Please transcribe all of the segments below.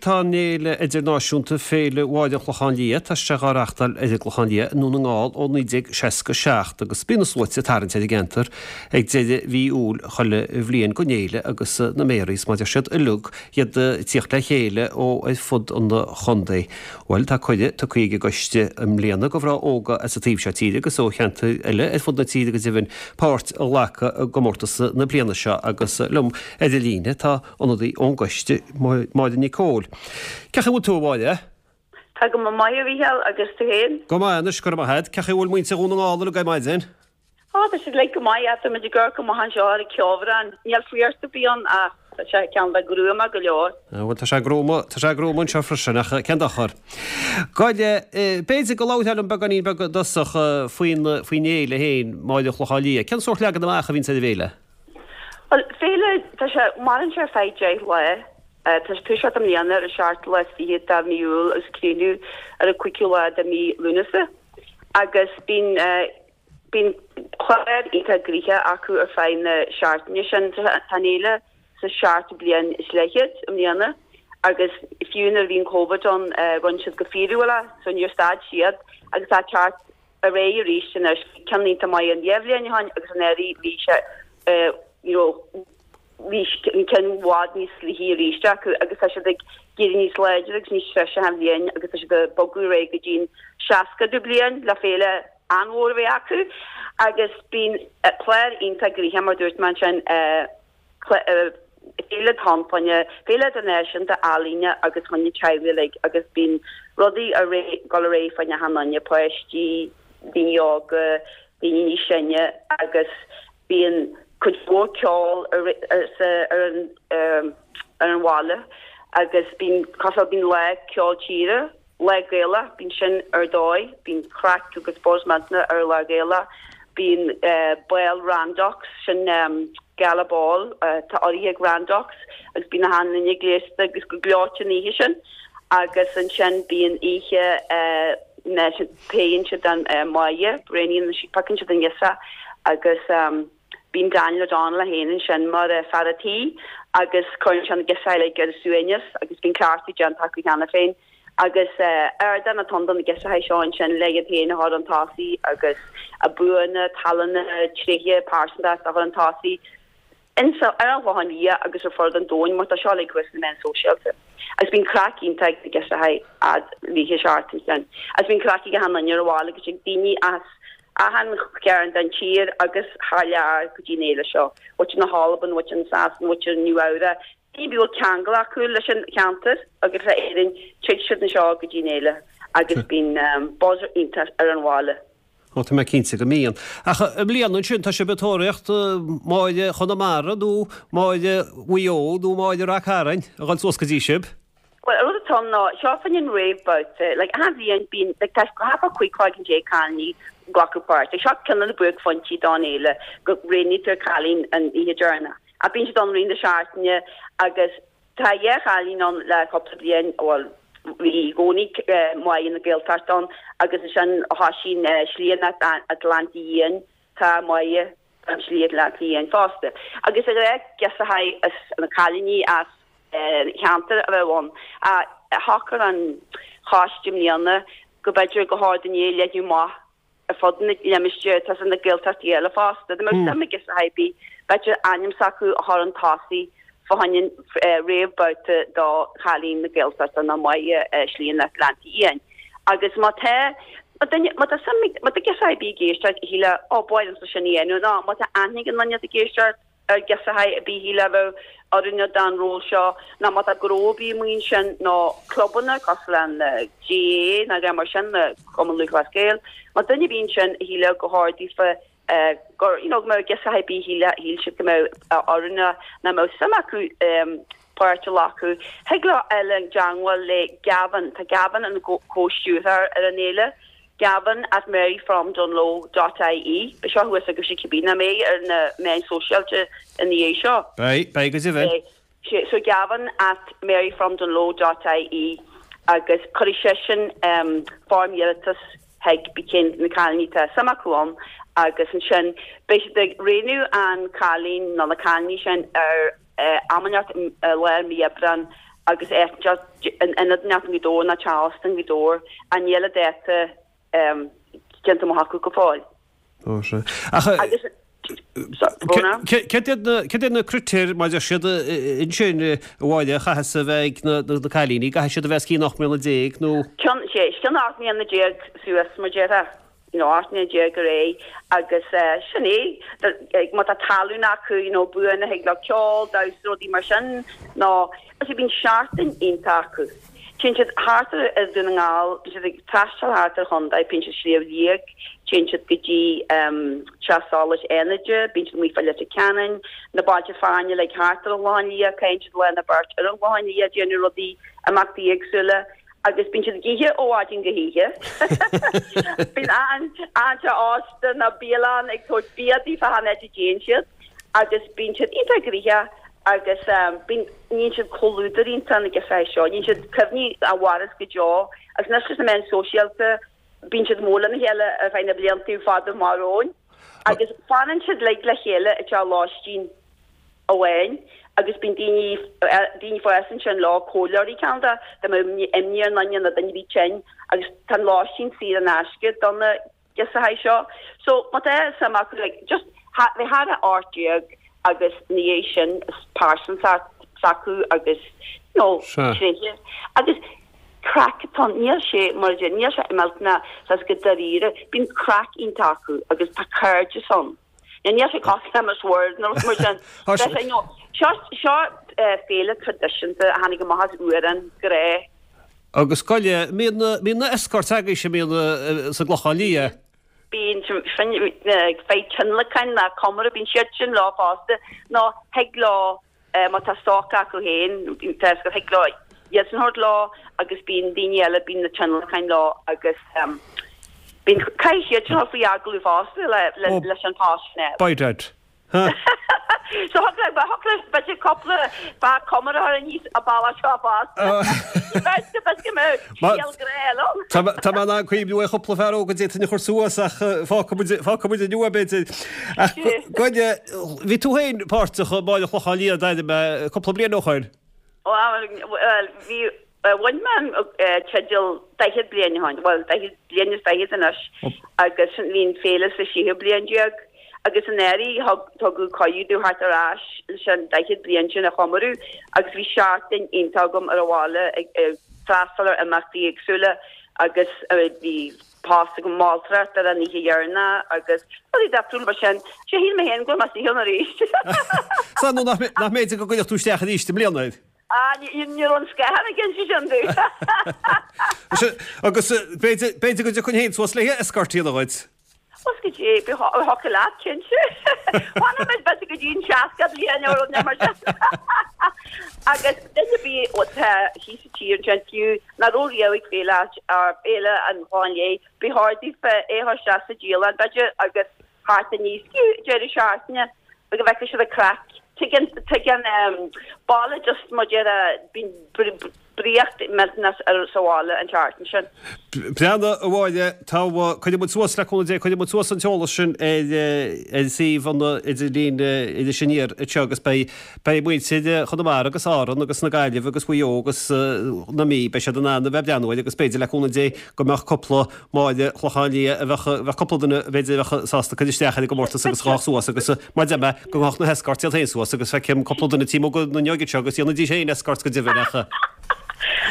Tá an fhéile idirnáisiúnta, Féile Mháire an Chlocháin Liath, tá sé dhá reachtáil ar an gClochán Liath i nDún na nGall ó 1967 agus bíonn na sluaite ag tarraingt ar an gceantar ag deireadh mhí Iúil chuile bhliain don fhéile agus na méaraí is mar a deir siad uilig iad ag tíocht le chéile ó ar fud an chontae. Bhuel, tá cuireadh tugtha ag an gcoiste i mbliana do mhná óga as an taobh seo tíre agus ó cheantair eile ar fud na tíre go deimhin páirt a ghlacadh i gcomórtas na bliana seo agus liom ar an líne tá ionadaí ón gcoiste, Máire Nic Cóil. Cén chaoi a bhfuil tú, a Mháire? Tá go maith, a Mhícheáil, agus tú féin? Go maith anois, go raibh maith agat. Cén chaoi a bhfuil muintir Dhún na nGall uilig ar maidin? Á, tá siad uilig go maith, tá muid ag amharc amach anseo ar an cheobhrán. Níl fuireacht ar bith ann ach tá sé cineál de gruama go leor. Bhuel, tá sé gruama, tá sé gruama anseo freisin, ach cén dochar. Gabh i leith, b'fhéidir go labharfá liom beagáinín beag i dtosach faoin, faoin fhéile féin, Máire an Chlocháin Liath. Cén sórt leagan amach a bhíonns ar an bhféile? Bhuel, féile, tá sé, maireann sé ar feadh 10 lá. Tá sé ag toiseacht i mbliana ar an seachtú lá is fichead de mhí Iúil agus ag críochnú ar an cúigiú lá de mhí Lúnasa. Agus bíonn, bíonn clár iontach gnoitheach acu ar feadh na seachtaine sin. Tá an fhéile sa seachtú bliain is leathchéad i mbliana agus fiú nuair a bhí an Covid ann, rinne siad go fíorúil é, so níor stad siad agus tá teacht ar aghaidh arís anois. Bhí ceann iontach maith an dá bhliain ó shin agus anuraidh bhí sé you know bhí an ceann i bhfad níos luaithe arís acu agus tá siad ag éirí níos láidre agus níos treise achan bhliain agus tá siad ag bogadh ar aghaidh go dtí an seascadú bliain le féile an-mhór a bheith acu agus bíonn clár iontach gnoitheach mar dúirt mé ansin Féile atá ann fá choinne, féile idirnáisiúnta ealaíne agus fá choinne teaghlaigh uilig agus bíonn rudaí ar aghaidh, dul ar aghaidh fá choinne achan duine, páistí, daoine óga, daoine níos sine agus bíonn cuid mhór ceol ar ar an ar an bhaile agus bíonn cosúil bíonn lá ceol tíre Lá Gaelach, bíonn sin ar dóigh, bíonn craic agus buzz millteanach ar Lá Gaelach, bíonn bál Randox, sin gala ball atá urraithe ag Randox agus bíonn achan duine gléasta agus go gleoite an oíche sin agus ansin bíonn oíche na faigheann siad an Máire, roghnaíonn siad, piocann siad an ghirseach agus bíonn Daniel O'Donnell é féin ansin mar fear a' tí agus cuireann sé na girseachaí uilig ar a suaimhneas agus bíonn cleachtadh déanta acu cheana féin. Agus ardán atá ann do na girseachaí seo ansin le iad féin a chur chun tosaigh agus a buanna, tallanna, tréithe pearsantachta a chur chun tosaigh insa, ar an Chlochán Liath agus ar fud an domhain mar tá seo uilig thuas sna meáin sóisialta. Agus bíonn craic iontach ag na girseachaí fhad rith an seachtain sin. Agus bíonn craic ag achan duine ar an bhaile agus ag daoine as achan chearn den tír agus thar lear go dtí an fhéile seo. Muintir na hAlban, muintir na Sasana, muintir Nua Eabhrac, Ní bhfuil ceangal acu leis an cheantar agus le Éirinn, tig siad anseo go dtí an fhéile agus bíonn buzz iontach ar an bhaile. Ó, tá mé cinnte go mbíonn. Ach i mbliana ansin, tá sibh ag tóraíocht Máire Chonamara nó Máire Mhaigh Eo nó Máire Rath Cairn a dhul suas go dtí sibh? Bhuel, an rud atá ann ná, seo fá choinne an réamhbhabhta. Like, achan bhliain bíonn, like, tá thart fá 15 cloigeann cailíní ag glacadh páirt. Like, seo ceann de na buaicphointí don fhéile, go roghnaítear cailín an oíche deireanach. Ach bíonn siad ann i rith na seachtaine agus tá dhá chailín ann le cúpla bliain, bhuel, bhí i gcónaí Máire na Gaeltachta ann agus ansin thosaigh an Slí an Atlantaigh Fhiáin, tá Máire an tSlí Atlantaigh Fhiáin fosta. Agus is gnách girseachaí as na cailíní as an cheantar a bheith ann. Ach shocair an choiste i mbliana go mb'fhéidir gur chóir dúinn é a leathnú amach ar fud na limistéir atá sna Gaeltachtaí eile fosta. Dá mbeadh suim ag girseach ar bith, b'fhéidir ainm s'acu a chur chun tosaigh fá choinne an réamhbhabhta do chailín na Gaeltachta nó Máire Slí an Atlantaigh Fhiáin. Agus má tá duine, má tá suim ag, má tá girseach ar bith ag éisteacht a shílfeadh, ó, ba mhaith liomsa sin a dhéanamh, nó má tá aithne ag an nduine atá ag éisteacht, ar ghirseach ar bith a shílfeá a bheadh oiriúnach don ról seo nó má tá gnó ar bith amuigh ansin nó clubanna cosúil le an GAA nó rudaí mar sin, Cumann Lúthchleas Gael, má tá duine ar bith ansin a shílfeadh gur chóir daofa gur you know go mbeadh girseach ar bith a shíl siad go mbeadh oiriúnach nó mbeadh suim acu páirt a ghlacadh. Thig leo dul i dteangmháil le Gavin, tá Gavin ina chomh-stiúrthóir ar an fhéile. Gavin at maryfromdunloe dot ie. Beidh seo thuas agaibhse cibé nach mbeidh ar na meáin sóisialta ina dhiaidh seo. Beidh, beidh go deimhin. Beidh. So Gavin at maryfromdunloe dot ie agus cuirfidh seisean foirm iarratais chuig pé cén na cailíní atá suim acu ann agus ansin beidh siad ag roghnú an cailín nó na cailíní sin ar am inteacht i lár mí Aibreán. agus áit in ionad inteacht i nGaoth Dobhair nó teach ósta i nGaoth Dobhair ach níl an dáta déanta amach acu go fóill. Ó sea. Ach Agus céard iad na critéir mar a deir siad ansin a Mháire a chaithfeas a bheith ag na cailíní? Caithfidh siad a bheith os cionn 18 mbliana nó? Cionn, sé, os cionn 18 mbliana suas mar déarfá. you know, 18 mbliana ar aghaidh agus sin é, má tá tallann acu, you know, buanna thig leo ceol, damhsa, rudaí mar sin, nó agus bíonn seachtain iontach acu. Téann siad thart ar Dhún na nGall, bíonn siad ag taisteal thart ar chontae, bíonn siad Sliabh Liag, téann siad go dtí Teach Solais Fhánaide, bíonn siad amuigh fá Leitir Ceanainn, na bailte fearainn like thart ar an Chlochán Liath, caitheann siad lá nó beirt ar an Chlochán Liath, déanamh rudaí, imeachtaí éagsúla. Agus bíonn siad ag ithe ó mhaidin go hoíche. Bíonn achan teach ósta nó bialann ag tabhairt bia daofa achan áit a dtéann siad agus bíonn siad iontach gnoitheach agus bíonn, níonn siad comhluadar iontach na girseachaí seo, níonn siad cuimhní a mhaireas go deo agus anois leis na meáin sóisialta bíonn siad mór lena chéile ar feadh na blianta fada amach romhainn agus fanann siad uilig le chéile i dteach lóistín. amháin agus bíonn daoine, daoine fásta ansin leo, comhairleoirí cineál de, dá mbeadh imní ar dhuine nó duine ar bith tinn agus tá an lóistín saor in aisce do na girseachaí seo. So má tá suim acu like just bheith thar a 18 agus ina dhiaidh sin is pearsantacht s'acu agus you know tréithe agus craic atá ann, níl sé mar a deir, níl sé millteanach saghas go dáiríre, bíonn craic iontach acu agus tá cairdeas ann. Níl sé cosúil le Miss World nó rud mar sin. Seo seo féile traidisiúnta a tháinig amach as Uarán, grá. Agus gabh i leith, mbíonn na mbíonn na escorts agaibhse mbíonn sa gClochán Liath. Bíonn sin fir tionlacain ná comóradh, bíonn siad sin leo fosta nó thig leo má tá stoc acu féin, tá a fhios agat, thig leo iadsan a thabhairt leo agus bíonn daoine eile, bíonn na tionlacain leo agus bíonn, caithfidh siad sin a dhul faoi agallamh fosta le, leis an post sin a fháil. By dad. Huh. So thug le, thug le, b'fhéidir cúpla fear comóradh a chur aníos an bealach seo fosta. B'fhéidir, b'fhéidir go mbeadh scéal grá eile ann. Tá tá mé in ann cuimhniú ar chúpla fear óg a d'fhéadfainn a chur suas ach fágfaidh muid, fágfaidh muid inniu é b'fhéidir. Ach gabh i leith, bhí tú féin páirteach i Máire Chlocháin Liath d'aire mé cúpla bliain ó shoin. Bhuel, bhí, bhain mé an teideal 40 bliain ó shoin, bhuel, 40 bliain is fichead anois agus bhí an féile sa séú bliain déag agus anuraidh thug, tugadh cuireadh domh theacht ar ais leis an 40 bliain sin a chomóradh agus bhí seachtain iontach agam ar an bhaile ag freastal ar imeachtaí éagsúla agus bhí post agam moltóireacht ar an oíche dheireanach agus rudaí difriúla mar sin. Sea, shíl mé féin go raibh mé saothar arís. Sea, nó nach mb'fhéidir go gcuirfeadh tú isteach arís i mbliana air? Ah, ní raibh an scáthán ag inse sin domh. Agus b'fhéidir go dtiocfainn féin suas le escort a dhéanamh dhuit. Bhuel go dtí, thiocfadh leat, cinnte. Fanfaidh muid b'fhéidir go dtí an 60 bliain nó rud mar sin. Agus duine ar bith atá thíos sa tír ansin fiú nach raibh riamh ag féile féile an Chlocháin Léith, ba chóir daofa é a chur isteach sa dialann b'fhéidir agus theacht aníos fiú deireadh seachtaine go bhfeicfidh siad an craic. Tuigeann, tuigeann baile just mar déarfá, bíonn draíocht millteanach ar sa bhaile an tseachtain sin. Breathnaigh, a Mháire, tá, cuirfidh muid suas, le cúnamh Dé, cuirfidh muid suas an t-eolas sin ar, ar suíomh an idirlín Iris Aniar anseo agus beidh, beidh muintir Chonamara agus Árann agus na Gaillimhe agus Mhaigh Eo agus na Mí, beidh siad in ann a bheith ag breathnú air agus b'fhéidir, le cúnamh Dé, go mbeadh cúpla Máire Clochán Liath a bheadh, bheadh cúpla duine b'fhéidir a bheadh sásta cur isteach ar an gcomórtas agus a ghabhadh suas agus mar deir mé go ngabhadh na hescorts iad féin suas agus feicim cúpla duine taobh amuigh den fhuinneog anseo agus dhéanfaidís féin escorts go deimhin ach.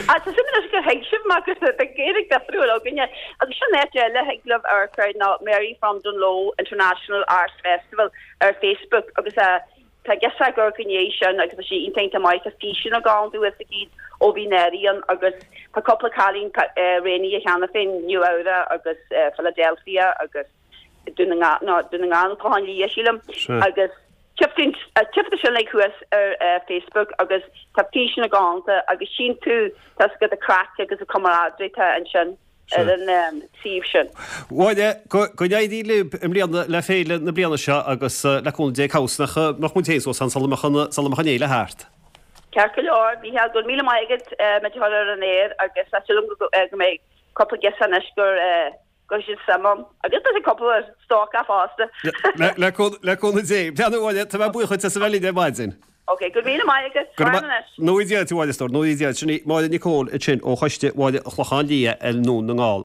Tá suim anois gur thuig sibh mar gur tá Gaeilge difriúil againne agus sin áit eile a thig libh amharc air ná Mary from Dungloe International Arts Festival ar Facebook agus Tá girseach ag amharc i ndiaidh sin agus tá sí iontach iontach maith. Tá físeanna galánta thuas aici ó bhí anuraidh ann agus tá cúpla cailín roghnaithe cheana féin, Nua Eabhrac agus Philadelphia agus Dún na nGall, no, Dún na nGall nó Clochán Liath sílim. Agus tchífidh tú sin like thuas ar Facebook agus tá físeanna galánta agus tchíonn tú tá 's agat an craic agus an camaraderie atá ansin. ar an suíomh sin. Mháire, go n-éirí libh i mbliana le féile na bliana seo agus le cúnamh Dé cá bhfios nach mbeadh muid féin suas ann sula mbeadh an sula mbeadh an fhéile thart. Ceart go leor, Mícheál, go raibh míle maith agat muid a chur ar an aer agus tá súil agam go mbeidh cúpla girseach anois gur go raibh siad suim ann agus beidh cúpla stócach fosta. Le cúnamh Dé. Breathnaigh a Mháire, tá mé buíoch duit as a bheith linn ar maidin. Ok, go raibh míle maith agat. Go raibh maith. Go ngnóthaí Dia duit, a Mháire, a stór. Go ngnóthaí Dia duit. Sin í Máire Nic Cóil ansin ó Choiste Bhaile an Chlocháin Liath i nDún na nGall.